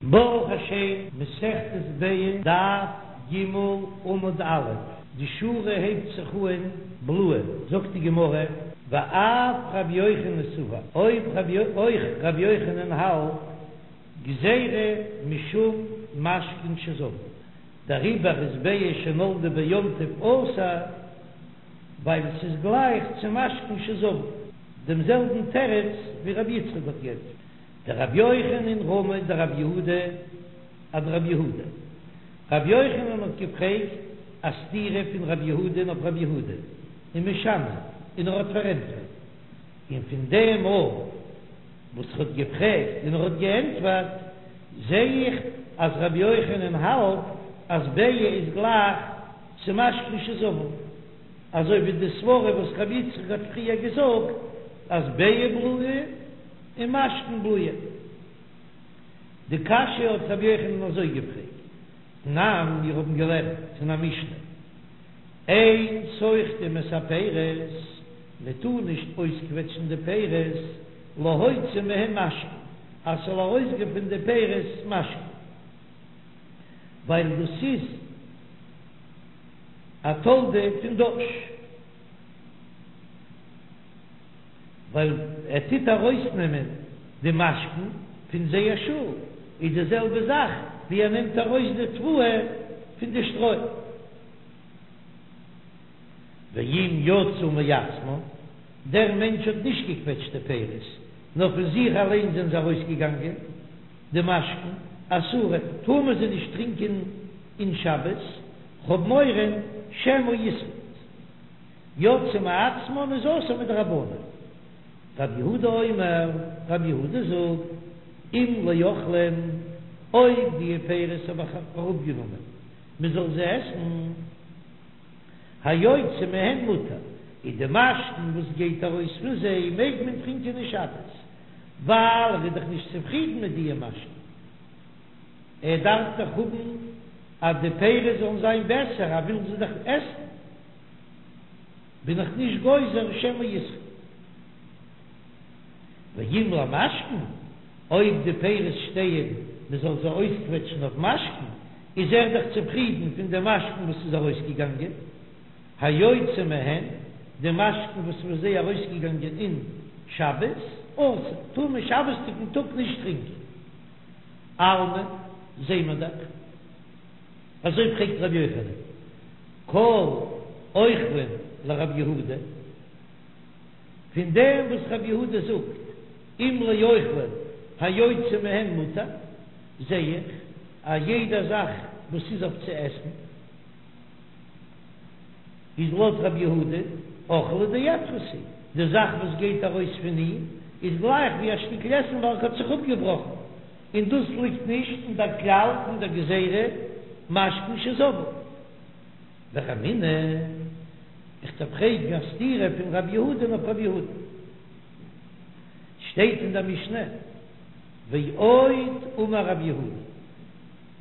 ברוך השם, מסכת ביצה, דף ג עמוד א', די שורה הייבט זיך אהן בלועה, זאגט די גמרא, ואף רבי יוחנן סבר, אויב אויך רבי יוחנן האלט, גזירה משום משקין שזבו, דעריבער איז ביצה שנולדה ביום טוב אסור, ווייל ס'איז גלייך צו משקין שזבו, דעם זעלבן תירוץ ווי רבי יצחק האט גענטפערט. דרבי יוחנן רמי דרבי יהודה אדרבי יהודה. רבי יוחנן האט געפרעגט א סתירה פון רבי יהודה'ן אויף רבי יהודה ומשני און ער האט פארענטפערט. און פון דעם מאל וואס ער האט געפרעגט און ער האט געענטפערט זעה איך אז רבי יוחנן האלט אז ביצה איז גלייך צו משקין שזבו, אזוי ווי די סברא וואס רבי יצחק האט פריער געזאגט אז ביצה בלועה. און משקין בלועה. די קשיא האט רבי יוחנן אזוי געפרעגט, תנן, מיר האבן געלערנט אין א משנה, אין סוחטין את הפירות, מען טאר נישט אויסקוועטשן די פירות, להוציא מהן משקין, אז ס'זאל ארויסגיין פון די פירות משקין, ווייל דאס איז א תולדה פון דש. ווייל ער טוט ארויסנעמען די משקין פון זייער שאל, איז די זעלבע זאך ווי ער נעמט ארויס די תבואה פון די שטרוי. ואם יצאו מעצמן, דער מענטש האט נישט געקוועטשט די פירות, נאר פון זיך אליין זענען זיי ארויסגעגאנגען, די משקין, אסורין, טאר מען זיי נישט טרינקען אין שבת, כ'האב מורא שמא יסחוט. יצאו מעצמן איז אסור מדרבנן. רב יהודה אומר, רב יהודה זאגט, אם לאוכלין, אויב די פירות האב איך אראפגענומען מען זאל זיי עסן, היוצא מהן מותר, איז די משקין וואס גייט ארויס פון זיי מעג מען טרינקען אין שבת, ווייל ער איז דאך נישט צופרידן מיט די משקין. ער דארף דאך האבן אז די פירות זאלן זיין בעסער, ער וויל זיי דאך עסן. בין איך נישט גוזר שמא יסחוט. ואם למשקין, אויב די פירות שטייען מען זאל זיי אויסקוועטשן אויף משקין, איז ער דאך צופרידן פון די משקין וואס איז ארויסגעגאנגען, היוצא מהן, די משקין וואס איז פון זיי ארויסגעגאנגען אין שבת, אסור, טאר מען שבת'דיגן טאג נישט טרינקען. אלמא, זעהן מיר דאך. אזוי פרעגט רבי יוחנן, כל אוכלין לרבי יהודה, פון דעם וואס רבי יהודה זאגט אם לאוכלין היוצא מהן מותר, זע איך אז יעדע זאך וואס איז אויף צו עסן איז לויט רבי יהודה אוכלא דאפרת הוא, די זאך וואס גייט ארויס פון אים איז גלייך ווי א שטיקל עסן וועלכע האט זיך אפגעבראכן. און דאס ליגט נישט אין דער כלל פון דער גזירה משקין שזבו. ורמינהו, איך דארף פרעגן א סתירה פון רב יהודה אויף רב יהודה. שטייט אין דער משנה, ועוד אמר רב יהודה,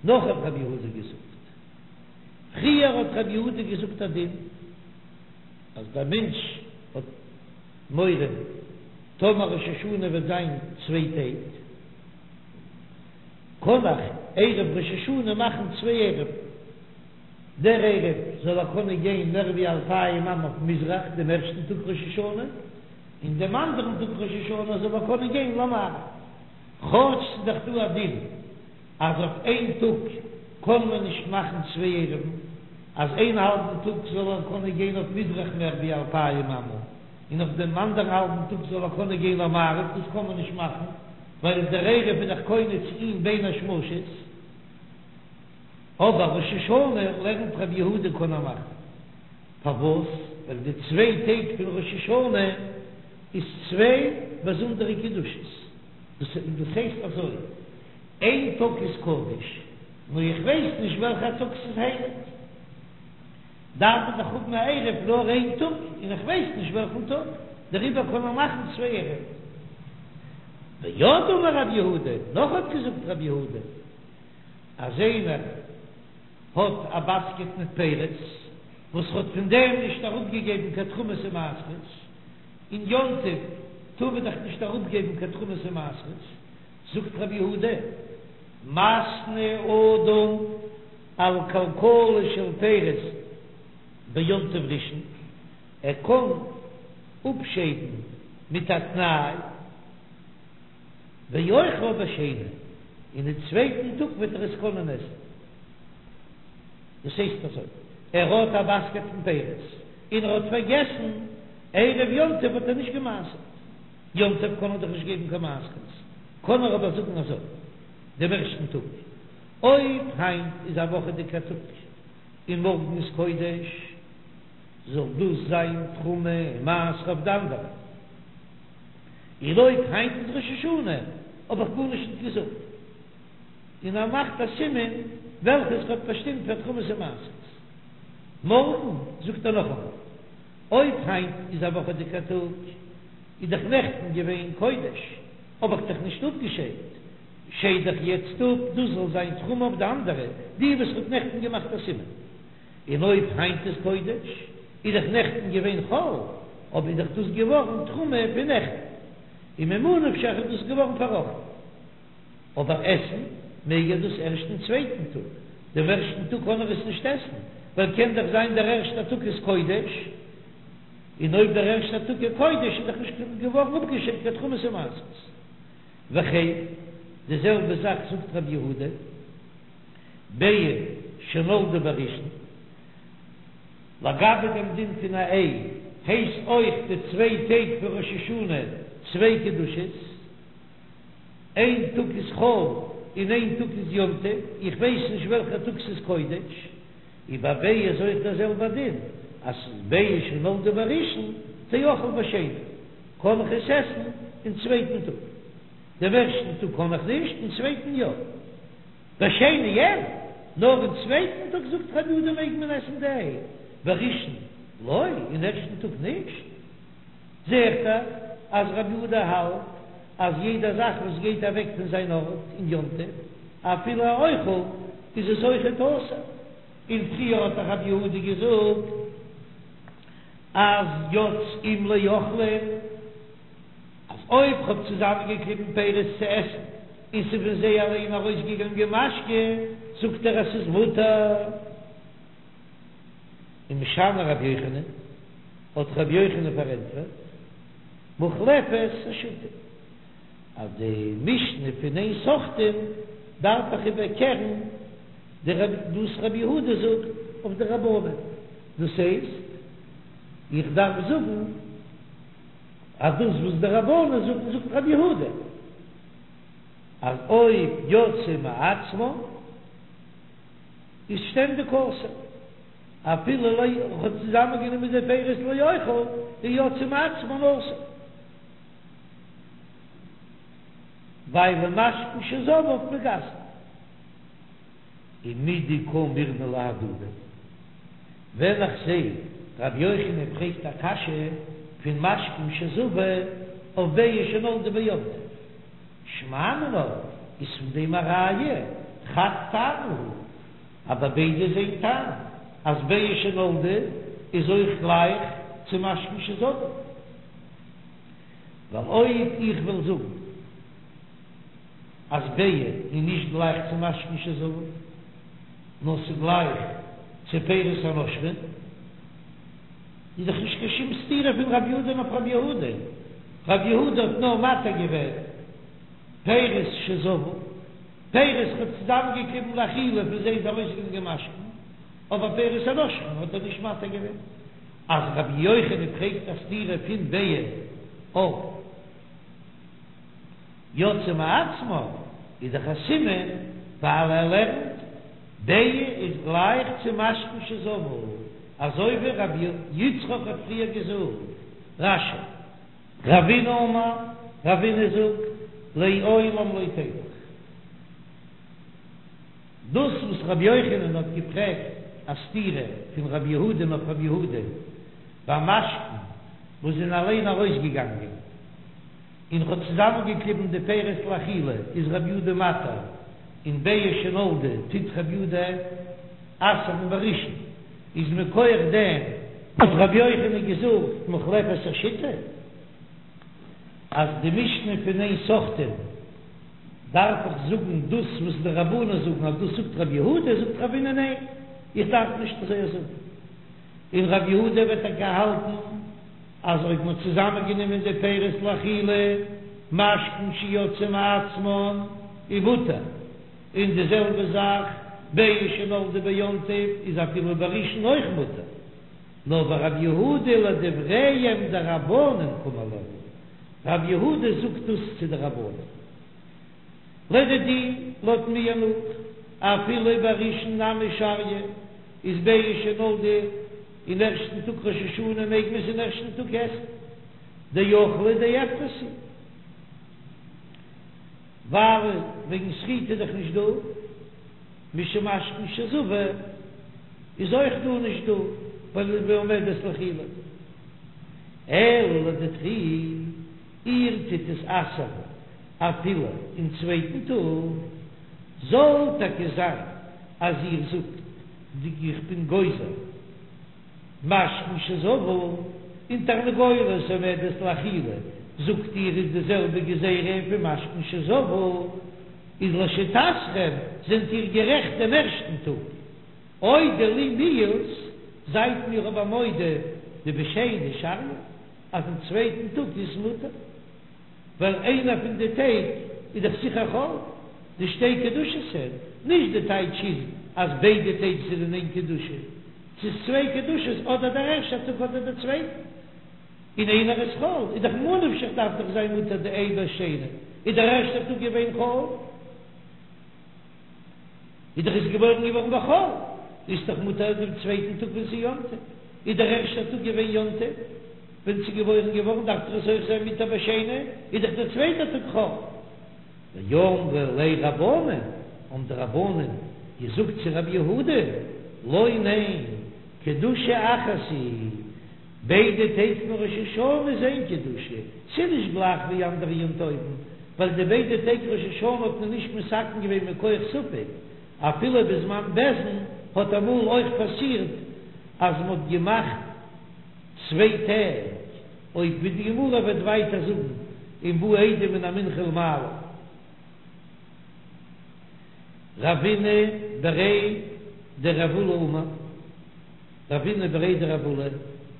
נאך האט רב יהודה געזאגט, פריער האט רב יהודה געזאגט א דין, אז דער מענטש האט מורא טאמער ראש השנה וועט זיין צוויי טעג, קען איך ערב ראש השנה מאכן צוויי עירובין, דער עירוב זאל ער קענען גיין מער ווי אלפיים אמה אויף מזרח דעם ערשטן טאג ראש השנה, און דעם אנדערן טאג ראש השנה זאל ער קענען גיין למערב, כאטש ס'איז דאך דא א דין אז אויף איין טאג קען מען נישט מאכן צוויי עירובין, אז איין האלבן טאג זאל ער קענען גיין אויף מזרח מער ווי אלפיים אמה, און אויף דעם אנדערן האלבן טאג זאל ער קענען גיין למערב, דאס קען מען נישט מאכן, ווייל דער עירוב איז דאך קונה צו אים בין השמשות. אבער ראש השנה לערנט רבי יהודה קען ער מאכן. פארוואס? ווייל די צוויי טעג פון ראש השנה איז צוויי באזונדערע קדושות. דאס הייסט אזוי, איין טאג איז קדוש, נאר איך ווייס נישט וועלכע טאג ס'איז הייליג. דארף מען דאך האבן א עירוב נאר איין טאג, און איך ווייס נישט וועלכן טאג, דעריבער קען מען מאכן צוויי עירובין. ועוד אמר רב יהודה, נאך האט געזאגט רב יהודה, אז איינער האט א באסקעט מיט פירות, וואס האט פון דעם נישט אראפגעגעבן קיין תרומות ומעשרות, אין יום טוב טאר מען דאך נישט אראפגעבן קיין תרומות ומעשרות, זאגט רב יהודה. מתנה אדם על כלכלה של פירות ביום טוב ראשון, ער קען אפשיידן מיט א תנאי, ואוכלה בשני, און אין צווייטן טאג וועט ער עס קענען עסן. דאס הייסט אזוי, ער האט א באסקעט פון פירות, און ער האט פארגעסן ערב יום טוב האט ער נישט גע'מעשר'ט, יום טוב קען ער דאך נישט געבן קיין מעשרות, קען ער אבער זאגן אזוי דעם ערשטן טאג, אויב היינט איז א וואכעדיגע טאג און מארגן איז קודש, זאל דאס זיין תרומה און מעשר אויף די אנדערע, און אויב היינט איז ראש השנה האב איך גארנישט נישט געזאגט, און ער מאכט א סימן וועלכעס ער האט באשטימט פאר תרומות און מעשרות. מארגן זאגט ער נאכאמאל, אויב היינט איז א וואכעדיגע טאג, איז דאך נעכטן געווען קודש, האב איך דאך נישט אפגעשיידט, שייד איך יעצט אפ דאס זאל זיין תרומה אויף די אנדערע, די וואס כ'האב נעכטן געמאכט א סימן. און אויב היינט איז קודש, איז דאך נעכטן געווען חול, אבער איז דאך דאס געווארן תרומה פון נעכטן, און ממה נפשך איז דאס געווארן פארראכטן. אבער עסן מעג ער דאס ערשט אין צווייטן טאג, דעם ערשטן טאג קען ער עס נישט עסן, ווייל קען דאך זיין דער ערשטער טאג איז קודש, און אויב דער ערשטער טאג איז קודש איז דאך נישט געווארן אפגעשיידט קיין תרומות און מעשרות. וכן, די זעלבע זאך זאגט רבי יהודה, ביצה שנולדה בראשון, לגבי דעם דין פון א איי, הייסט אויך די צוויי טעג פון ראש השנה צוויי קדושות, איין טאג איז חול און איין טאג איז יום טוב, איך ווייס נישט וועלכע טאג ס'איז קודש, און ביי ביצה איז אויך דער זעלבער דין, אז ס'איז ביצה שנולדה בראשון תאכל בשני, קען איך עס עסן אין צווייטן טאג, דעם ערשטן טאג קען איך נישט, אין צווייטן יא. בשני אין, נאר אין צווייטן טאג זאגט רבי יהודה מעג מען עסן די איי, בראשון לא, אין ערשטן טאג נישט. זעהט דאך אז רבי יהודה האלט אז יעדע זאך וואס גייט אוועק פון זיין ארט אין יום טוב, אפילו א אוכל, איז עס אויכעט אסור. און פריער האט דאך רבי יהודה געזאגט אז יוצאין לאוכלין, אז אויב כ'האב צוזאמענגעקליבן פירות צו עסן און ס'איז פון זיי אליין ארויסגעגאנגען משקה, זאגט ער אז ס'איז מותר. ומשני רבי יוחנן, האט רבי יוחנן פארענטפערט, מוחלפת השיטה, אז די משנה פון אין סוחטין דארף איך איבערקערן די וואס רבי יהודה זאגט אויף די רבנן, דאס הייסט איך דארף זאגן אז דאס וואס די רבנן זאגן זאגט רבי יהודה, אז אויב יצאו מעצמן איז שטענדיג אסור, אפילו לא איך האב צוזאמען גענומען די פירות לאוכל איז יצאו מעצמן אסור, ווייל משקין שזבו מגסין, ומדקא מרמי להדדי, ווען איך זע רבי יוחנן פרעגט א קשיא פון משקין שזבו אויף ביצה שנולדה ביום טוב. שמע מינה, איז פון דעם א ראיה, חד טעמא הוא, אז ביי ביידע איז איין טעם, אז ביצה שנולדה איז אויך גלייך צו משקין שזבו. ווייל אויב איך וועל זאגן אז ביצה איז נישט גלייך צו משקין שזבו, נאר ס'איז גלייך צו פירות הנושרין, איז דאך נישט קיין שום סתירה פון רב יהודה'ן אויף רב יהודה, רב יהודה האט נאר מתיר געווען פירות שזבו, פירות ער האט צוזאמענגעקליבן לאכילה פון זיי איז ארויסגעגאנגען משקין, אבער פירות הנושרין האט ער נישט מתיר געווען. אז רבי יוחנן פרעגט א סתירה פון ביצה אויף יצאו מעצמן איז דאך א סימן ווייל ער לערנט ביצה איז גלייך צו משקין שזבו, אזוי ווי רבי יצחק האט פריער געזאגט, רש"י. רבינא אמר, רבינא זאגט, לעולם לא תיפוך. דאס וואס רבי יוחנן האט געפרעגט א סתירה פון רבי יהודה'ן אויף רבי יהודה ביי משקין וואס זענען אליין ארויסגעגאנגען און ער האט צוזאמענגעקליבן די פירות לאכילה איז רבי יהודה מתיר און ביצה שנולדה טוט רבי יהודה אסר'ן בראשון איז מכח דעם האט רבי יוחנן געזאגט מוחלפת השיטה אז די משנה פון אין סוחטין. דארף איך זאגן דאס וואס די רבנן זאגן אז דאס זאגט רב יהודה, זאגט רבינא ניין, איך דארף נישט אזוי זאגן, און רב יהודה וועט טאקע האלטן אז אויב מ'האט צוזאמען גענומען די פירות לאכילה, משקין שיצאו מעצמן איז מותר, און די זעלבע זאך ביצה שנולדה ביום טוב איז אפילו בראשון אויך מותר, נאר ורב יהודה לדבריהם דרבנן קאמר להו, רב יהודה זאגט דאס צו די רבנן. לדידי, לויט מיר נאך, אפילו בראשון נמי שריא, איז ביצה שנולדה אין ערשטן טאג ראש השנה מעג מען עס אין ערשטן טאג עסן, דאוכלא דאפרת הוא, ווייל וועגן סחיטה איז דאך נישט דא, משום משקין שזבו איז אויך דא נישט דא, ווייל בעומדת לאכילה. אלא לדידכו, איר טוט עס אסר'ן אפילו אין צווייטן טאג, זאל טאקע זיין אז איר זאגט די איך בין גוזר משקין שזבו און תרנגולת עומדת לאכילה, זאגט איר איז די זעלבע גזירה פון משקין שזבו, איז לשיטתכם זענט איר גערעכט דעם ערשטן טאג. אודו לי מיהת, זייט מיר אבער מודה דבשני שריא אז אין צווייטן טאג איז מותר, ווייל איינער פון די טעג איז דאך זיכער חול, די שתי קדושות הן, נישט די טייטש איז אז ביידע טעג זענען איין קדושה, ס'איז צוויי קדושות אדער דער ערשטער טאג אדער דער צווייטער, און איינער איז חול, איז דאך ממה נפשך דארף דאך זיין מותר די איי בשני, איז דער ערשטער טאג געווען חול. איז דאך עס געבוירן געווארן בחול, איז דאך מותר דעם צווייטן טאג ווען ס'איז יום טוב, איז דער ערשטער טאג געווען יום טוב, ווען ס'איז געבוירן געווארן דארף דאך עס אויך זיין מותר בשני, איז דאך דער צווייטער טאג חול. ואמרי ליה רבנן, האבן די רבנן געזאגט צו רבי יהודה, לא ניין, קדושה אחת היא, ביידע טעג פון ראש השנה איז איין קדושה, ס'איז נישט גלייך ווי אנדערע יום טובים, ווייל די ביידע טעג ראש השנה האט מען נישט מתקן געווען מכח ספק, אפילו בזמן בית דין האט אמאל אויך פאסירט אז מ'האט געמאכט צוויי טעג, אויב ווי די גמרא וועט ווייטער זאגן אם באו עדים מן המנחה ולמעלה. רבינא בריה דרב עולא אמר. רבינא בריה דרב עולא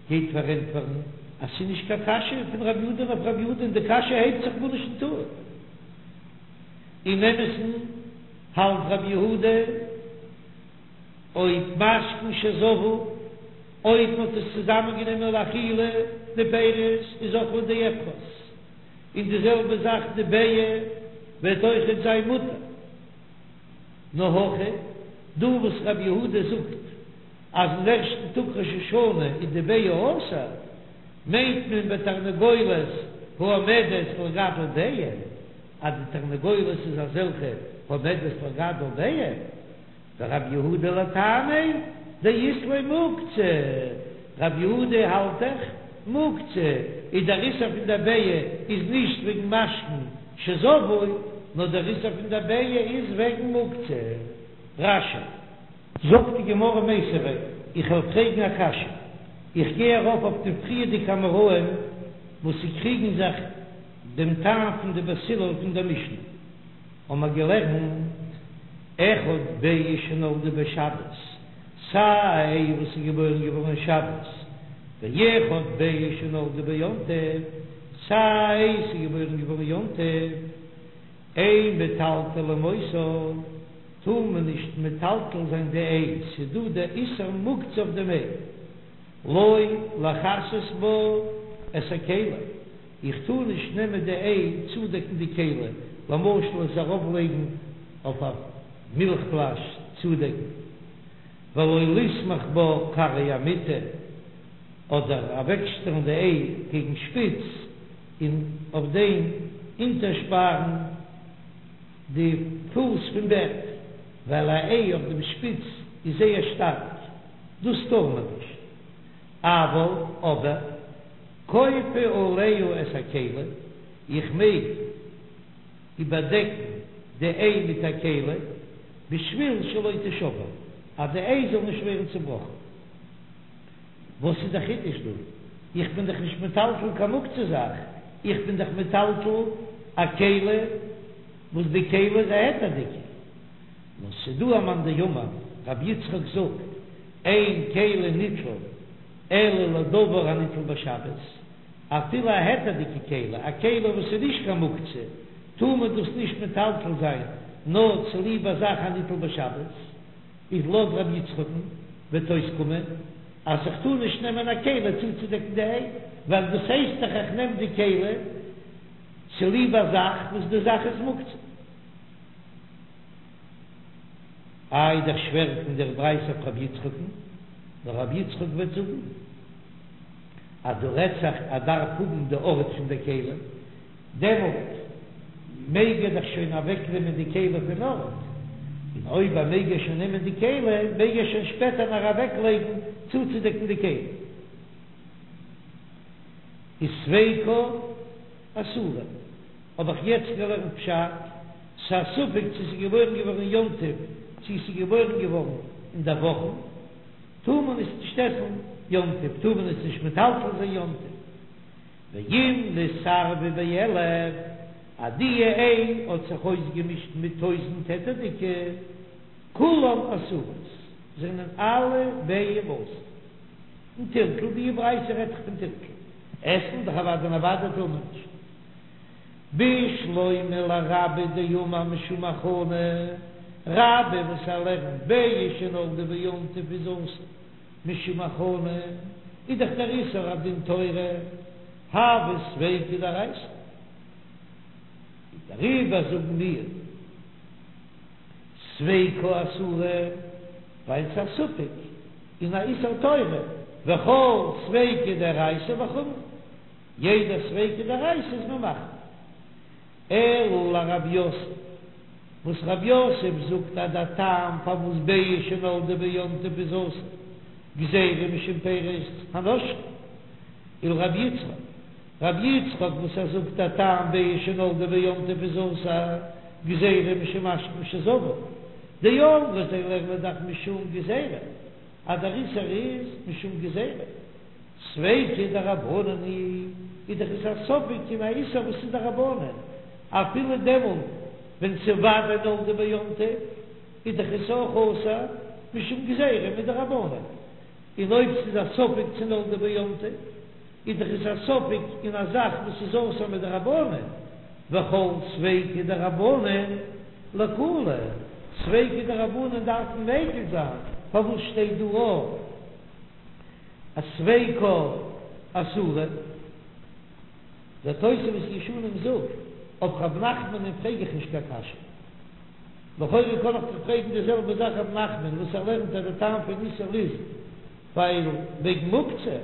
גייט פארענטפערן אז ס'איז נישט קיין קשיא פון רב יהודה'ן אויף רב יהודה'ן, די קשיא הייבט זיך גארנישט נישט אן. אין אמת'ן האלט רב יהודה אויב משקין שזבו, אויב מ'האט עס צוזאמען גענומען לאכילה די פירות איז אוכלא דאפרת, און די זעלבע זאך די ביעא וועט אויכעט זיין מותר. נאר הכא, דא וואס רב יהודה זאגט אז אין ערשטן טאג ראש השנה איז די ביעא אסור, מיינט מען בתרנגולת העומדת לגדל ביעא, אז די תרנגולת איז אזעלכע העומדת לגדל ביעא, ורב יהודה לטעמיה דאית ליה מוקצה, רב יהודה האלט דאך מוקצה איז דער איסור פון דער ביעא איז נישט וועגן משקין שזבו, נאר דער איסור פון דער ביעא איז וועגן מוקצה. רש"י. זאגט די גמרא מיתיבי, איך וועל פרעגן א קשיא, איך גיי ארויף אויף די פריערדיגע אמוראים וואס ס'קריגן זיך דעם טעם פון די בית הלל פון דער משנה, האבן מיר געלערנט אחד ביעא שנולדה בשבת, סיי א איי וואס איז געבוירן געווארן שבת, ואחד ביעא שנולדה ביום טוב, סיי א איי ס'איז געבוירן געווארן יום טוב, אין מטלטלין אותה, טאר מען נישט מטלטל זיין די איי, ס'איז דא די איסור מוקצה אויף דעם איי, לא לכסות בה את הכלי, איך טאר נישט נעמען די איי צודעקן די כלי, למשל עס ארויף לייגן אויף א מילך פלאש צודעקן, ולא לסמוך בה כרעי המיטה, אדער אוועקשטעלן די איי קעגן שפיץ און אויף דעם אונטערשפארן די פוס פון בעט, ווייל א איי אויף דעם שפיץ איז זייער שטארק, דאס טאר מען נישט. אבל, אבער, כופה עליה את הכלי, איך מעג איבערדעקן די איי מיט א כלי, בשביל שלא תשבר, אז די איי זאל נישט ווערן צובראכן. וואס איז די חידוש דא? איך בין דאך נישט מטלטל קיין מוקצה זאך, איך בין דאך מטלטל א כלי. וואס די כלי איז א היתר'דיגע. נאר ס'דא א מאן דאמר, רבי יצחק זאגט, אין כלי ניטל אלא לדבר הניטל בשבת, אפילו א היתר'דיגע כלי, א כלי וואס איז נישט קיין מוקצה, טאר מען דאס נישט מטלטל זיין נאר צוליב א זאך הניטל בשבת, איז לויט רבי יצחק'ן וועט אויסקומען אז איך טאר נישט נעמען א כלי צוצודעקן די איי, ווייל דאס הייסט דאך איך נעם די כלי צוליב א זאך וואס די זאך איז מוקצה. איי דאך שווער פון דער ברייתא אויף רבי יצחק'ן, נאר רבי יצחק וועט זאגן אז דא רעדט זיך ער דארף האבן די ארט פון די כלי, דעמאלט מעג ער דאך שוין אוועקנעמען די כלי פון ארט, און אויב ער מעג ער שוין נעמען די כלי, מעג ער שוין שפעטער נאך אוועקלייגן צוצודעקן די כלי. איז ספיקא אסורה. האב איך יעצט געלערנט פשט, ס'איז א ספק צו ס'איז געבוירן געווארן יום טוב צו ס'איז געבוירן געווארן אין דער וואכן, טאר מען עס נישט עסן יום טוב, טאר מען עס נישט מטלטל זיין יום טוב. ואם נתערבה באלף, אז די איי האט זיך אויסגעמישט מיט טויזענט היתר'דיגע, כולן אסורות, זענען אלע ביעים אסור. און טלטול, די ברייתא רעדט זיך פון טלטול, עסן דאך אוודאי און אוודאי טאר מען נישט. בשלמא לרבה דאמר משום הכנה, רבה וואס ער לערנט ביצה שנולדה ביום טוב איז אסור משום הכנה, איז דאך דער איסור א דין תורה, הוי ספיקא דאורייתא, דעריבער זאגן מיר ספיקא אסורה ווייל ס'איז א ספק אין א איסור תורה, וכל ספיקא דאורייתא לחומרא. יעדע ספיקא דאורייתא איז מען מחמיר. אלא לרב יוסף, וואס רב יוסף זאגט אז דער טעם פארוואס ביצה שנולדה ביום טוב איז אסור, גזירה משום פירות הנושרים, ולרב יצחק, רב יצחק וואס ער זאגט דער טעם ביצה שנולדה ביום טוב איז אסור, גזירה משום משקין שזבו, דאמרי זיי לערנען דאך משום גזירה, אז דער איסור איז משום גזירה. ספיקא דרבנן היא, איז דאך עס א ספק אין א איסור וואס איז דרבנן, אפילו דעמאלט ווען ס'איז ודאי נולדה ביום טוב, איז דאך עס אויך אסור משום גזירה מדרבנן, און אויב ס'איז א ספק צו נולדה ביום טוב, איז דאך עס א ספק אין א זאך וואס איז אסור מדרבנן, וכל ספיקא דרבנן לקולא, ספיקא דרבנן דארף מען מקיל זיין, פארוואס שטייט דא אויך? אז ספיקא אסורה, דער תוספות ישנים זאגט, אויף רב נחמנ'ן פרעג איך נישט קיין קשיא. לכאורה קען איך דאך פרעגן די זעלבע זאך רב נחמן וואס ער לערנט אז די טעם פון איסור איז ווייל וועגן מוקצה,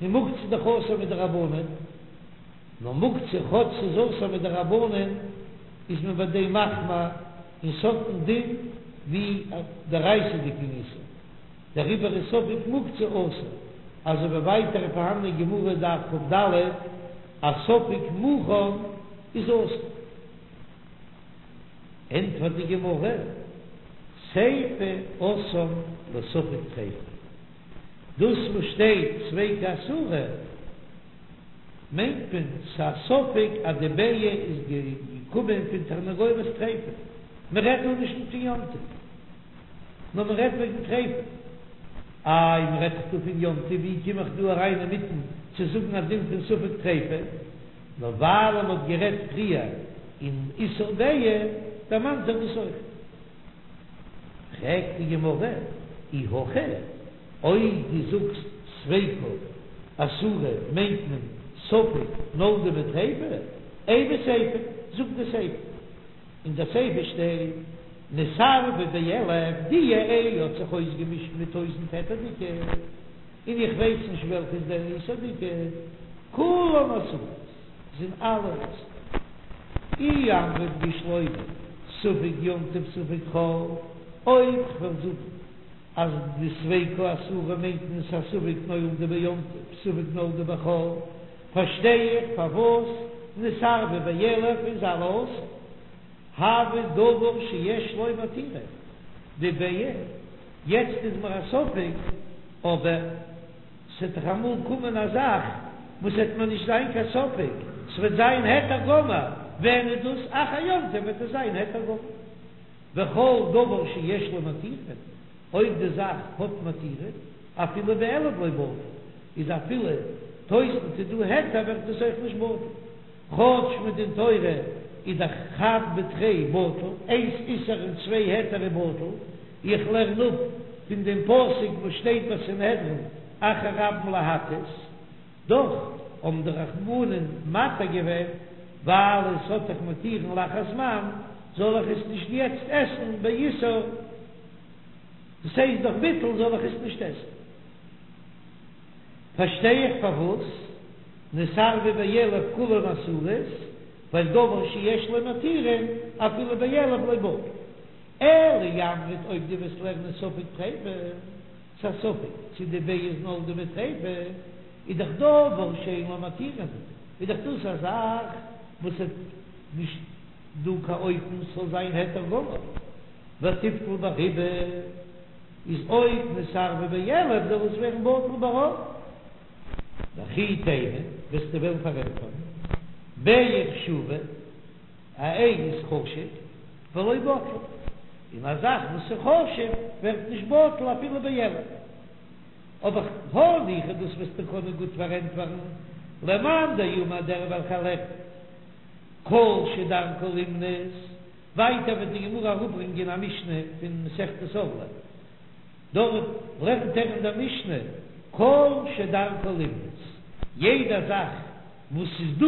און מוקצה איז דאך אסור מדרבנן, נאר מוקצה כאטש ס'איז אסור מדרבנן איז מען ביי דעם מחמיר און ס'האט דעם דין ווי א דאורייתא'דיגן איסור. דעריבער איז ספק מוקצה אסור, אזוי ווי ווייטער איז פארהאן אין גמרא דף כ"ד אז ספק מוכן איז אסור. ענטפערט די גמרא, סיפא אתאן לספק טריפה, דאס וואס שטייט ספיקא אסורה מיינט מען ס'א ספק אז די ביצה איז געקומען פון תרנגולת טריפה, מ'רעדט דא נישט פון יום טוב. נאר מען רעדט וועגן טריפה. איי מען רעדט דאך דא פון יום טוב, ווי קום איך דא אריין אינמיטן צו זאגן א דין פון ספק טריפה? נאר ווייל מען האט גערעדט פריער אין איסור ביצה, דערמאנט זיך דאס אויך. פרעגט די גמרא, אי הכי, אויב דו זאגסט ספיקא אסורה מיינט מען ספק נולדה מטריפה, אימא סיפא, זאג די סיפא. אין די סיפא שטייט נתערבה באלף, די איי האט זיך אויסגעמישט מיט טויזענט היתר'דיגע, און איך ווייס נישט וועלכע איז דער איסור'דיגע, כולן אסורות, זענען אלע אסור. אי אמרת בשלמא ספק יום טוב ספק חול, אויב כ'וועל זאגן אז די ספיקא אסורה מיינט מען ס'א ספק נולדה ביום טוב ספק נולדה בחול, פארשטיי איך פארוואס נתערבה באלף איז אלע אסור. הוי דבר שיש לו מתירין, די ביצה, יעצט איז מיר א ספק, אבער ס'עט דאך אמאל קומען א זאך וואס עט מיר נישט זיין קיין ספק, ס'וועט זיין היתר גמור. ווען איז דאס אחר יום טוב וועט עס זיין היתר גמור. וכל דבר שיש לו מתירין, אויב די זאך האט מתירין, אפילו באלף לא בטל, איז אפילו טויזנט איז דא היתר ווערט עס אויך נישט בטל. כאטש מדין תורה איז דאך חד בתרי בטל, איינס איסור און צוויי היתר איז בטל, איך לערן אפ פון דעם פסוק וואס שטייט ביי סנהדרין אחר רבים להטות, דאך האבן די רחמנין מתיר געווען ווייל עס האט דאך מתירין לאחר זמן, זאל איך עס נישט יעצט עסן באיסור, דאס הייסט דורך ביטול זאל איך עס נישט עסן. פארשטיי איך פארוואס נתערבו באלף כולן אסורות, ווייל דבר שיש לו מתירין אפילו באלף לא בטל. אלא אי אמרת אויב דו וועסט לערנען ספק טריפה, ס'א ספק צו די ביעה איז נולדה מטריפה, איז דאך דבר שאין לו מתירין, איז דאך דאס א זאך וואס איז נישט דא קיין אופן ס'זאל זיין היתר גמור, ותיבטל ברובא. איז אויב נתערבו באלף זאל עס ווערן בטל ברוב. וכי תימא וועסטו וועלן פארענטפערן ביעה חשובה, א איי איז חשוב ולא בטלה, און א זאך וואס איז חשוב ווערט נישט בטל אפילו באלף. אבער הניחא דאס וועסטו קענען גוט פארענטפערן למאן דאמר דער וועלכער לערנט כל שדרכו לימנות. ווייטער וועט די גמרא אראפברענגען א משנה פון מסכת ערלה, דארט לערנט ער אין דער משנה כל שדרכו לימנות, יעדע זאך וואס ס'איז דא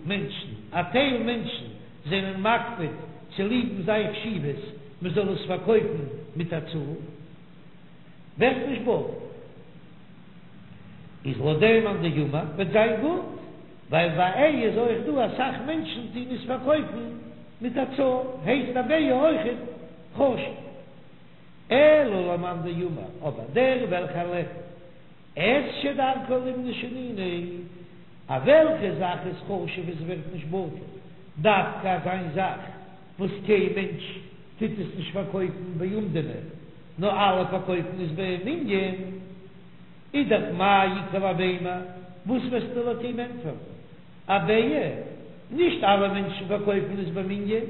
מענטשן, א טייל מענטשן זענען מקפיד צוליבן זיין חשיבות מ'זאל עס פארקויפן מיט א צאל, ווערט נישט בטל. איז לויט דעם מאן דאמר וועט זיין גוט, ווייל ביי איי איז אויך דא אסאך מענטשן טוהן עס פארקויפן מיט א צאל, הייסט א ביעה אויכעט חשוב. אלא למאן דאמר, אבער דער וועלכער לערנט את שדרכו לימנות שנינו, א וועלכע זאך איז חשוב עס ווערט נישט בטל, דווקא אזיין זאך וואס קיין מענטש טוט עס נישט פארקויפן באומדנא, נאר אלע פארקויפן עס במנין, איז דאך מאי איכא למימר, וואס וועסטו לויט אים ענטפערן? א ביעה, נישט אלע מענטשן פארקויפן עס במנין,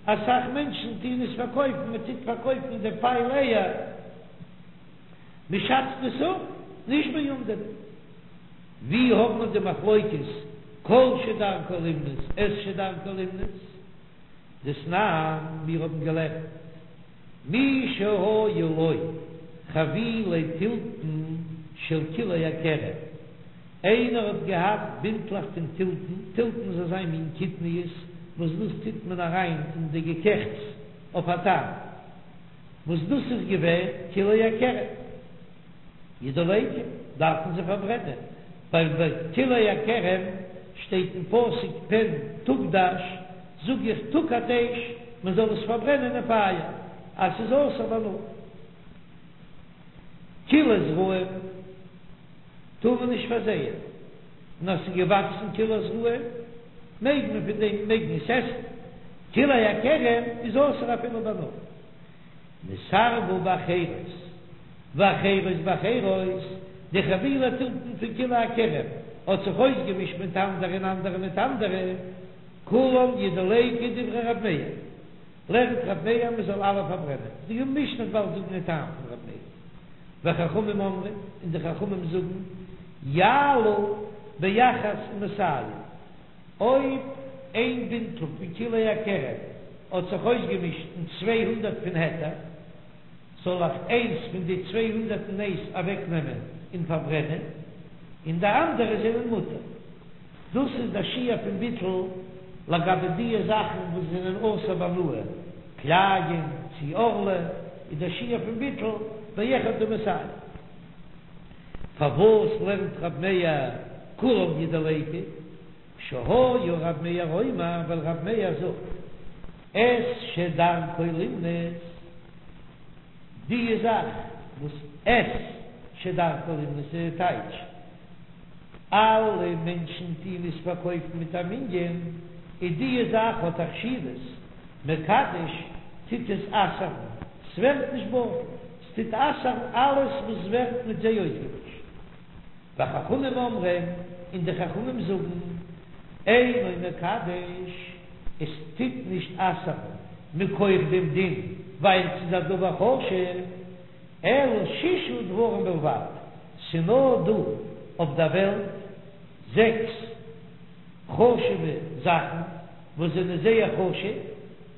אסאך מענטשן טוהן עס פארקויפן, מען טוט פארקויפן די פייל אייער, מען שאצט עס אפ, נישט באומדנא. ווי האט מען די מחלוקת כל שדרכו לימנות, את שדרכו לימנות? דתנן, מיר האבן געלערנט, מי שהיו לו חבילי תלתן של כלאי הכרם, איינער האט געהאט בינטלעך פון תלתן, תלתן איז אזא מין קטניות וואס דאס טוט מען אריין אין די געקעכטס אויף א טעם, וואס דאס איז געווען כלאי הכרם. ידלקו, דארף מען זיי פארברענען, ווייל ביי כלאי הכרם שטייט אין פסוק פן תוקדש, זאג איך תוקד אש, מען זאל עס פארברענען אין פייער, אז ס'איז אסור בהנאה. כלאי זרעים טאר מען נישט פארזייען, און אז ס'איז געוואקסן כלאי זרעים מעג מען פון דעם מעג מען עס עסן, כלאי הכרם איז אסור אפילו בהנאה. נתערבו באחרות, ואחרות באחרות, די חבילי תלתן פון כלאי הכרם האט זיך אויסגעמישט מיט אנדערע און אנדערע מיט אנדערע, כולם ידלקו דברי רב מאיר, לערנט רב מאיר מען זאל אלע פארברענען, די משנה וועט באלד זאגן די טעם פון רב מאיר, וחכמים אומרים, און די חכמים זאגן, יעלו באחת ומאתים. אויב איין בינטל פון כלאי הכרם האט זיך אויסגעמישט אין 200 פון היתר, זאל איך איינס פון די 201 אוועק נעמען און פארברענען, און די אנדערע זענען מותר. דאס איז דער שיעור פון ביטול לגבי דיע זאכן וואס זענען אסור בהנאה, כלאים צי ערלה, איז דער שיעור פון ביטול באחד ומאתים. פארוואס לערנט רב מאיר כולם ידלקו? שהיה רב מאיר אומר, ווייל רב מאיר זאגט את שדרכו לימנות, די זאך וואס את שדרכו לימנות איז די טייטש, אלע מענטשן טוהן עס פארקויפן מיט א מנין, איז די זאך האט א חשיבות, מקדש טוט עס אסר'ן, ס'ווערט נישט בטל, ס'טוט אסר'ן אלעס וואס ווערט מיט זיי אויסגעמישט. וחכמים אומרים, און די חכמים זאגן, אינו מקדש. עס טוט נישט אסר'ן מכח דעם דין ווייל ס'איז א דבר חשוב, אלא שישה דברים בלבד, ס'נאר דא אויף דער וועלט זעקס חשוב'ע זאכן וואס זענען זייער חשוב,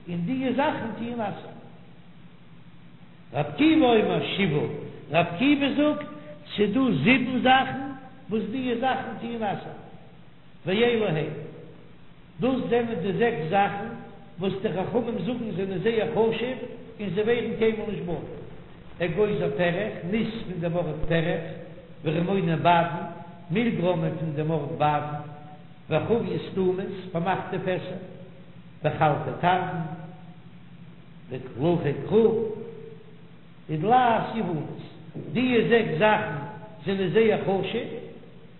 און דיע זאכן טוען אסר'ן. ר' עקיבא אומר שבעה, ר' עקיבא זאגט ס'דא זיבן זאכן וואס דיע זאכן טוען אסר'ן. ואלו הן, דאס זענען די זעקס זאכן וואס די חכמים זאגן זענען זייער חשוב און זיי ווערן קיינמאל נישט בטל, אגוזי פרך, ניס פון דעם ארט פרך, ורימוני בדן, מילגרוימען פון דעם ארט בדן, וחביות סתומות, פארמאכטע פעסער, וחלפי תרדין, וקלחי כרוב, ודלעת יונית, דיע זעקס זאכן זענען זייער חשוב,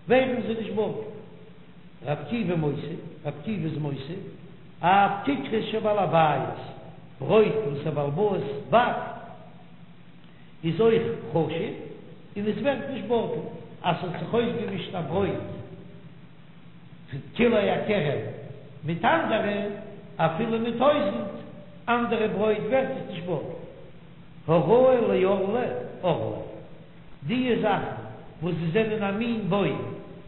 ווערן זיי נישט בטל. ר' עקיבא מוסיף, ר' עקיבא איז מוסיף, אף כיכרות של בעל הבית, ברויט וואס א בעל הבית באקט איז אויך חשוב און עס ווערט נישט בטל, אז ס'האט זיך אויסגעמישט א ברויט פון כלאי הכרם מיט אנדערע, אפילו מיט טויזענט אנדערע ברויט ווערט עס נישט בטל. הראוי לערלה, ערלה. דיע זאכן וואס זיי זענען א מין בוים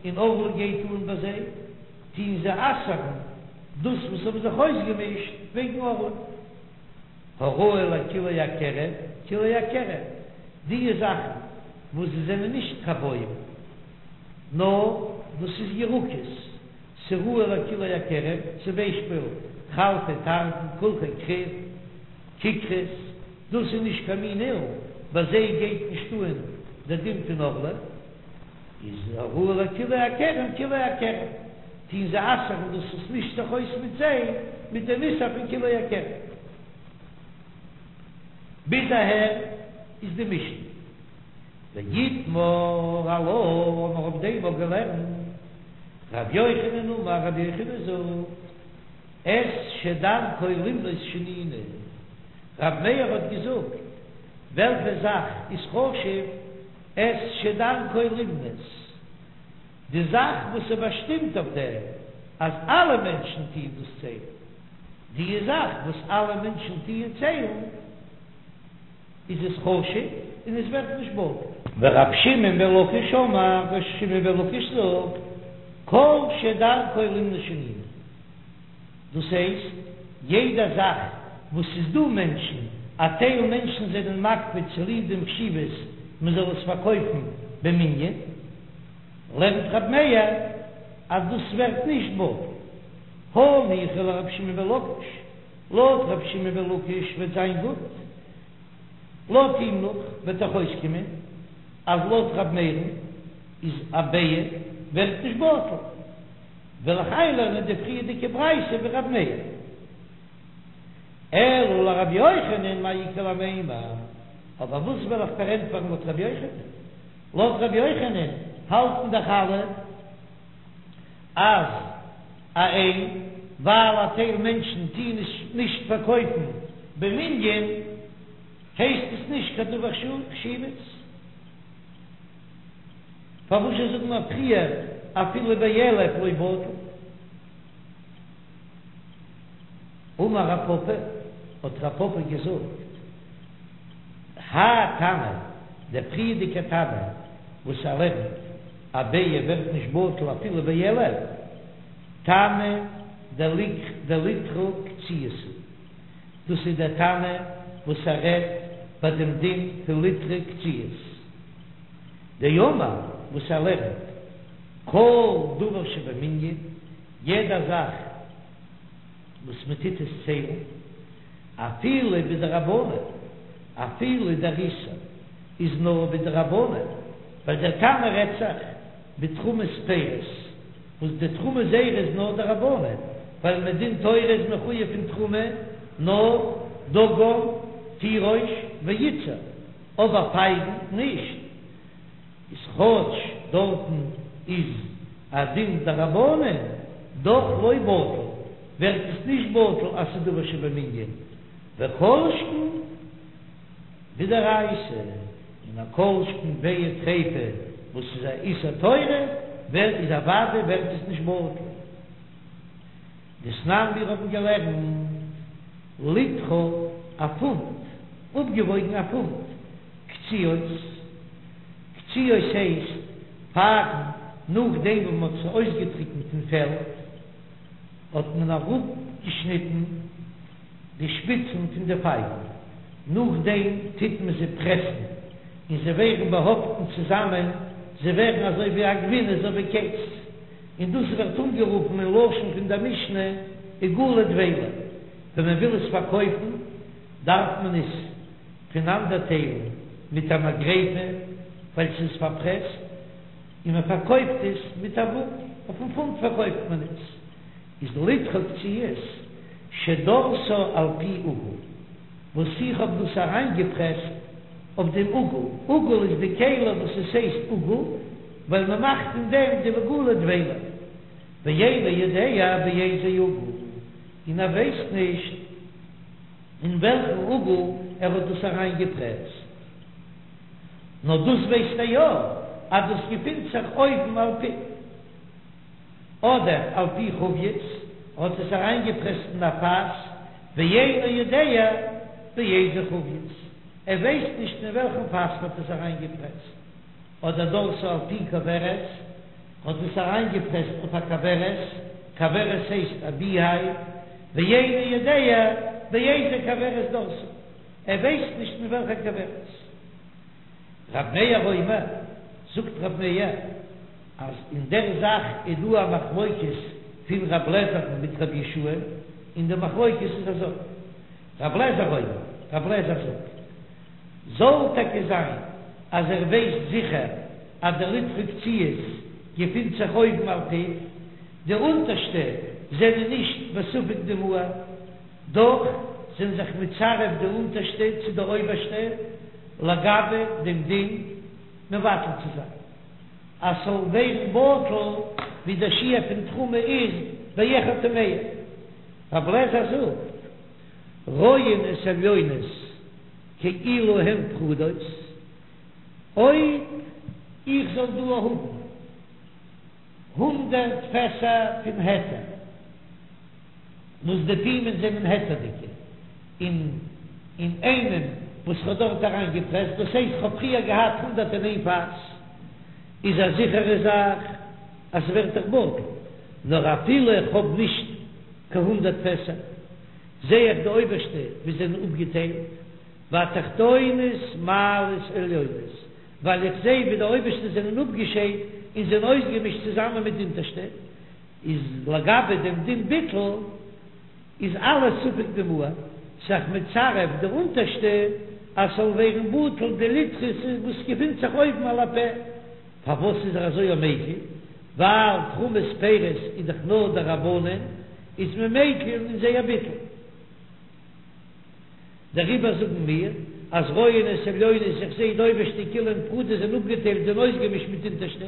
און ערלה גייט אן ביי זיי, טוהן זיי אסר'ן דאס וואס האבן זיך אויסגעמישט וועגן ערלה. הראוי לכלאי הכרם, כלאי הכרם, דיע זאכן וואס זיי זענען נישט קיין בוים, נאר דאס איז ירקות, ס'ראוי לכלאי הכרם, צום ביישפיל חלפי תרדין, קלחי כרוב, כיכרות, דאס איז נישט קיין מין אילן, ביי זיי גייט נישט אן דער דין פון ערלה, איז הראוי לכלאי הכרם כלאי הכרם, טוהן זיי אסר'ן דאס וואס מישט זיך אויס מיט זיי מיט דעם איסור פון כלאי הכרם. ביז אהער איז די משנה. ואיתמר עלה, האבן מיר אויף דעם אויך געלערנט, ר' יוחנן אמר, ר' יוחנן זאגט, את שדרכו למנות שנינו, ר' מאיר האט געזאגט, וועלכע זאך איז חשוב, את שדרכו למנות, די זאך וואס איז באשטימט אויף דעם אז אלע מענטשן טוען דאס ציילן, די זאך וואס אלע מענטשן טוען ציילן, איז עס חשוב און עס ווערט נישט בטל. ורב שמעון בן לקיש אמר, ר' שמעון בן לקיש זאגט, כל שדרכו למנות שנינו. דאס הייסט, יעדע זאך וואס ס'איז דא מענטשן, א טייל מענטשן זענען מקפיד צוליב דעם חשיבות מען זאל עס פארקויפן במנין, לערנט רב מאיר אז דאס ווערט נישט בטל. הניחא לרבי שמעון בן לקיש, לויט רבי שמעון בן לקיש וועט זיין גוט, לויט אים נאך וועט דאך אויסקומען אז לויט רב מאיר'ן איז א ביעה ווערט נישט בטל. וועל איך איינלערנען די פריערדיגע ברייתא ווי רב מאיר. אלא לרבי יוחנן מאי איכא למימר, אבער וואס וועל איך פארענטפערן לויט רבי יוחנן? לויט רבי יוחנן האלטן דאך אלע אז א איי, ווייל א טייל מענטשן טוען עס נישט פארקויפן במנין, הייסט עס נישט קיין דבר חשיבות. פארוואס זשע זאגן מיר פריער אפילו באלף לא בטל? אמר רב פפא, האט רב פפא געזאגט, האי תנא, דער פריערדיגער תנא וואס ער לערנט א ביעה ווערט נישט בטל אפילו באלף, תנא דליטרא קציעות הוא, דאס איז דער תנא וואס ער רעדט ביי דעם דין פון ליטרא קציעות. דאמר וואס ער לערנט כל דבר שבמנין, יעדע זאך וואס מען טוט עס ציילן, אפילו בדרבנן, אפילו דער איסור איז נאר בדרבנן, ווייל דער תנא רעדט זיך בתרומת פירות, וואס די תרומה זייערע איז נאר דרבנן, ווייל מדין תורה איז מחויב פון תרומה נאר דגן, תירוש, ויצהר. אבער פייגן נישט, איז כאטש דארטן איז א דין דרבנן, דאך לא בטל, ווערט עס נישט בטל אז ס'איז דבר שבמנין, וכל שכן בדאורייתא, און א כל שכן ביצה טריפה וואס איז א איסור תורה, ווערט איז אוודאי ווערט עס נישט בטל. דתנן מיר האבן געלערנט ליטרא א פונט, אפגעוואויגן א פונט, קציעות, קציעות הייסט פייגן נאכדעם וואס מען האט זיי אויסגעטריקנט אין פעלד האט מען אראפגעשניטן די שפיצן פון די פייגן, נאכדעם טוט מען זיי פרעסן און זיי ווערן באהאפטן צוזאמען, זיי ווערן אזוי ווי א גבינה אזוי ווי קעז, און דאס ווערט אנגערופן אין לשון פון דער משנה עיגולי דבילה, ווען מען וויל עס פארקויפן דארף מען עס פונאנדערטיילן מיט א מגרפה ווייל ס'איז פארפרעסט, און מען פארקויפט עס מיט א וואג, אויפן פונט פארקויפט מען עס, איז ליטרא קציעות שדרתה על פי עיגול, וואס איך האב דאס אריינגעפרעסט אויף דעם עיגול, עיגול איז די כלי וואס עס הייסט עיגול ווייל מען מאכט אין דעם די עיגולי דבילה, ואינו יודע באיזה עיגול, און ער ווייסט נישט אין וועלכן עיגול ער האט דאס אריינגעפרעסט, נאר דאס ווייסט ער יא אז דאס געפינט זיך אויבן על פיו. אדער על פי חבית, האט עס אריינגעפרעסט אין א פאס, ואינו יודע באיזה חבית, ער ווייסט נישט אין וועלכן פאס האט עס אריינגעפרעסט, אדער דרתה על פי כוורת, האט עס אריינגעפרעסט אויף א כוורת, כוורת הייסט א ביהייוו, ואינו יודע באיזה כוורת דרתה, ער ווייסט נישט אין וועלכע כוורת. רב מאיר אומר, זאגט רב מאיר, אז אין דער זאך איז דא א מחלוקת פון רב לעזער'ן מיט רב יהושע, און די מחלוקת איז אזוי, רב לעזער אומר, רב לעזער זאגט, זאל טאקע זיין אז ער ווייסט זיכער אז די ליטרא קציעות געפינט זיך אויבן על פיו, די אונטערשטע זענען נישט בספק דמהר, דאך זענען זיך מצרף די אונטערשטע צו די אויבערשטע לגבי דעם דין מבטל צו זיין אז ס'זאל ווערן בטל ווי דער שיעור פון תרומה איז באחד ומאה. רב לעזער זאגט, רואין את העליונות כאילו הן פרודות, אויב איך זאל דא האבן הונדרעט פעסער פון היתר, וואס די פומין זענען היתר'דיגע, און אין איינעם וואס כ'האב דארט אריין געפרעסט, דאס הייסט כ'האב פריער געהאט 101 פאס, איז א זיכערע זאך אז ס'ווערט דאך בטל, נאר אפילו איך האב נישט קיין הונדרעט פעסער, זע איך די אויבערשטע ווי זענען אפגעטיילט, והתחתונות מעלות עליונות, ווייל איך זע ווי די אויבערשטע זענען אפגעשיידט און זענען אויסגעמישט צוזאמען מיט די אונטערשטע. איז לגבי דעם דין ביטול איז אלעס ספק דמהר, ס'איז זיך מצרף די אונטערשטע אז ס'זאל ווערן בטל די ליטרא וואס געפינט זיך אויבן על הפה, פארוואס איז ער אזוי מקיל? ווייל תרומת פירות איז דאך נאר דרבנן, איז מען מקיל אין זייער ביטול. דעריבער זאגן מיר אז רואין את העליונות איך זעה די אויבערשטע כאילו הן פרודות זענען אפגעטיילט זענען אויסגעמישט מיט די אונטערשטע,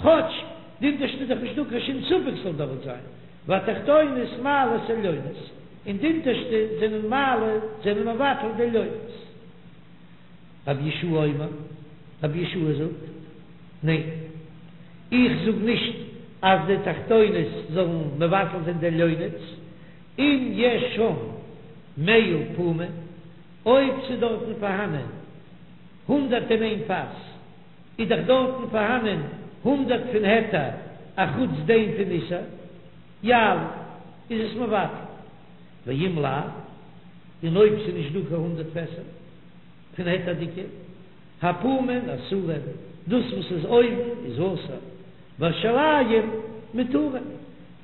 כאטש די אונטערשטע איז דאך נישטא קיין שום ספק ס'זאל דארט זיין, והתחתונות מעלות עליונות, און די אונטערשטע זענען מעלה זענען מבטל די עליונות. רבי יהושע אומר, רבי יהושע זאגט, ניין, איך זאג נישט אז די תחתונות זאלן מבטל זיין די עליונות, אם יש שם מאה פומין, אויב ס'איז דארטן פארהאנען 101 פאס, איז דאך דארטן פארהאנען הונדרעט פון היתר אחוץ דעם פון איסור, יעלו, איז עס מבטל, ואם לאו, און אויב ס'איז נישט דא קיין הונדרעט פעסער פון היתר'דיגע, הפומין אסורין, דאס וואס איז אויבן איז אסור, והשוליים מותרין,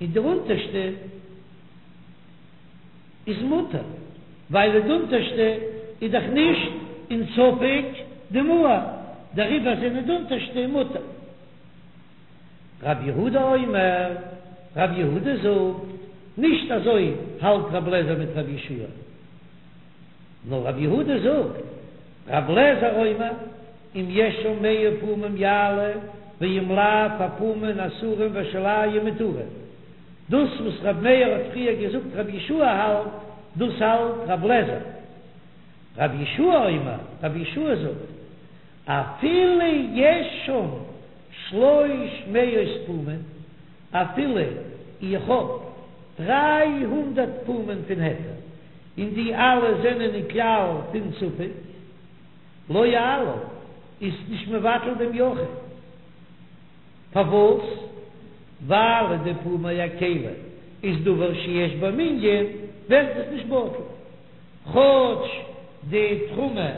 און די אונטערשטע איז מותר, ווייל די אונטערשטע איז דאך נישט אין ספק דמהר, דעריבער זענען די אונטערשטע מותר. רב יהודה אומר, רב יהודה זאגט, נישט אזוי האלט רב לעזער מיט רב יהושע נאר רב יהודה זאגט, רב לעזער אומר, אם יש שם מאה פומים יעלו, ואם לאו הפומין אסורים והשוליים מותרים. דאס וואס רב מאיר האט פריער געזאגט רב יהושע האלט, דאס האלט רב לעזער. רב יהושע אומר, רב יהושע זאגט, אפילו יש שם שלוש מאות פומין, אפילו איך האב. 300 פומין פון היתר, און די אלע זענען אין כלל פון ספק, לא יעלה, איז נישט מבטל דעם יחיד. פארוואס? ווייל די פומי הכלי איז דבר שיש בו מנין, ווערט עס נישט בטל, כאטש די תרומה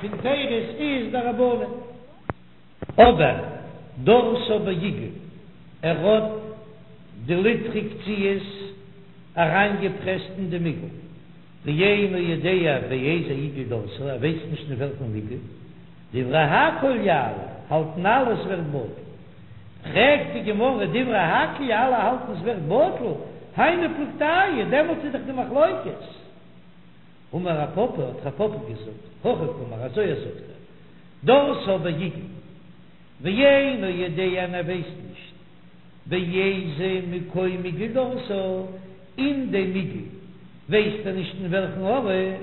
פון פירות איז דרבנן. אבער דרסה בעיגול, ער האט די ליטרא קציעות אריינגעפרעסט אין דעם עיגול, ואינו יודע באיזה עיגול דרסה, ער ווייסט נישט אין וועלכן עיגול, דברי הכל יעלה, האלטן אלע עס ווערט בטל. פרעגט די גמרא דברי הכל אלע האלטן עס ווערט בטל, היינו פלוגתייהו, דעמאלטס איז דאך די מחלוקת. אמר רב פפא, האט רב פפא געזאגט, הכי קאמר, אזוי זאגט ער, דרסה בעיגול, ואינו יודע און ער ווייסט נישט באיזה מקום עיגול דרסה, אין דעם עיגול ווייסט ער נישט אין וועלכן ארט.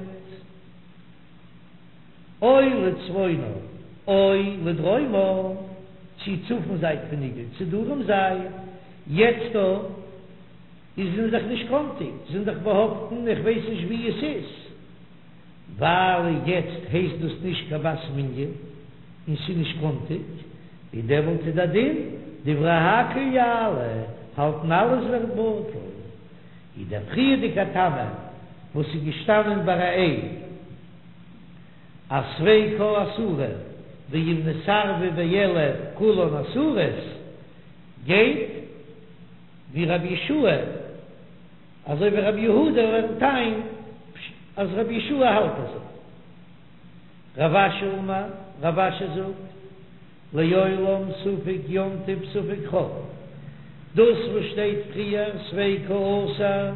או לצפונה או לדרומה, צו צפון זייט פון עיגול צו דרום זייט, יעצט דא איז זענען דאך נישט קאנטיג, זענען דאך באהאפטן, איך ווייס נישט ווי עס איז, ווייל יעצט הייסט דאס נישט קיין בת מנין און ס'איז נישט קאנטיג, און דעמאלט איז דער דין דברי הכל יעלה, האלטן אלע עס ווערט בטל. איז דער פריערדיגע תנא וואס איז געשטאנען ביי א אז ספיקא אסורה ואם נתערבה באלף כולן אסורות גייט ווי רבי יהושע אזוי ווי רבי יהודה לערנט איין אז רבי יהושע האלט אזוי. רב אשי אמר, רב אשי זאגט. לעולם ספק יום טוב ספק חול. דאס וואס שטייט פריער ספיקא אסור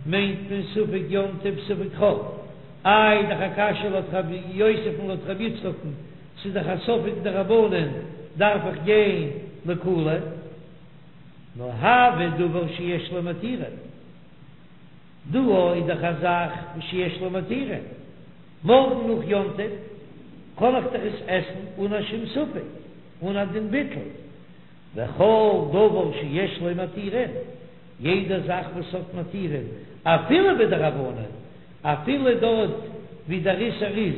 מיינט מען ספק יום טוב ספק חול. איי דאך א קשיא לויט רב יוסף און לויט רבי יצחק'ן, ס'איז דאך א ספק דרבנן דארף איך גיין לקולא. נאר הוי דבר שיש לו מתירין. דא איז דאך א זאך שיש לו מתירין. מארגן נאך יום טוב קען איך דאך עס עסן אן א שום ספק, אן א דין ביטול, וכל דבר שיש לו מתירין, יעדע זאך וואס האט מתירין, אפילו בדרבנן, אפילו דארט ווי דער איסור איז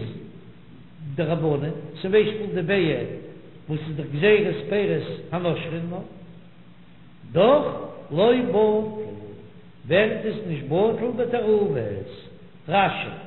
דרבנן, צום ביישפיל די ביעא וואס איז דאך גזירת פירות הנושרין, דאך לא בטל, ווערט עס נישט בטל בתערובות. רש"י.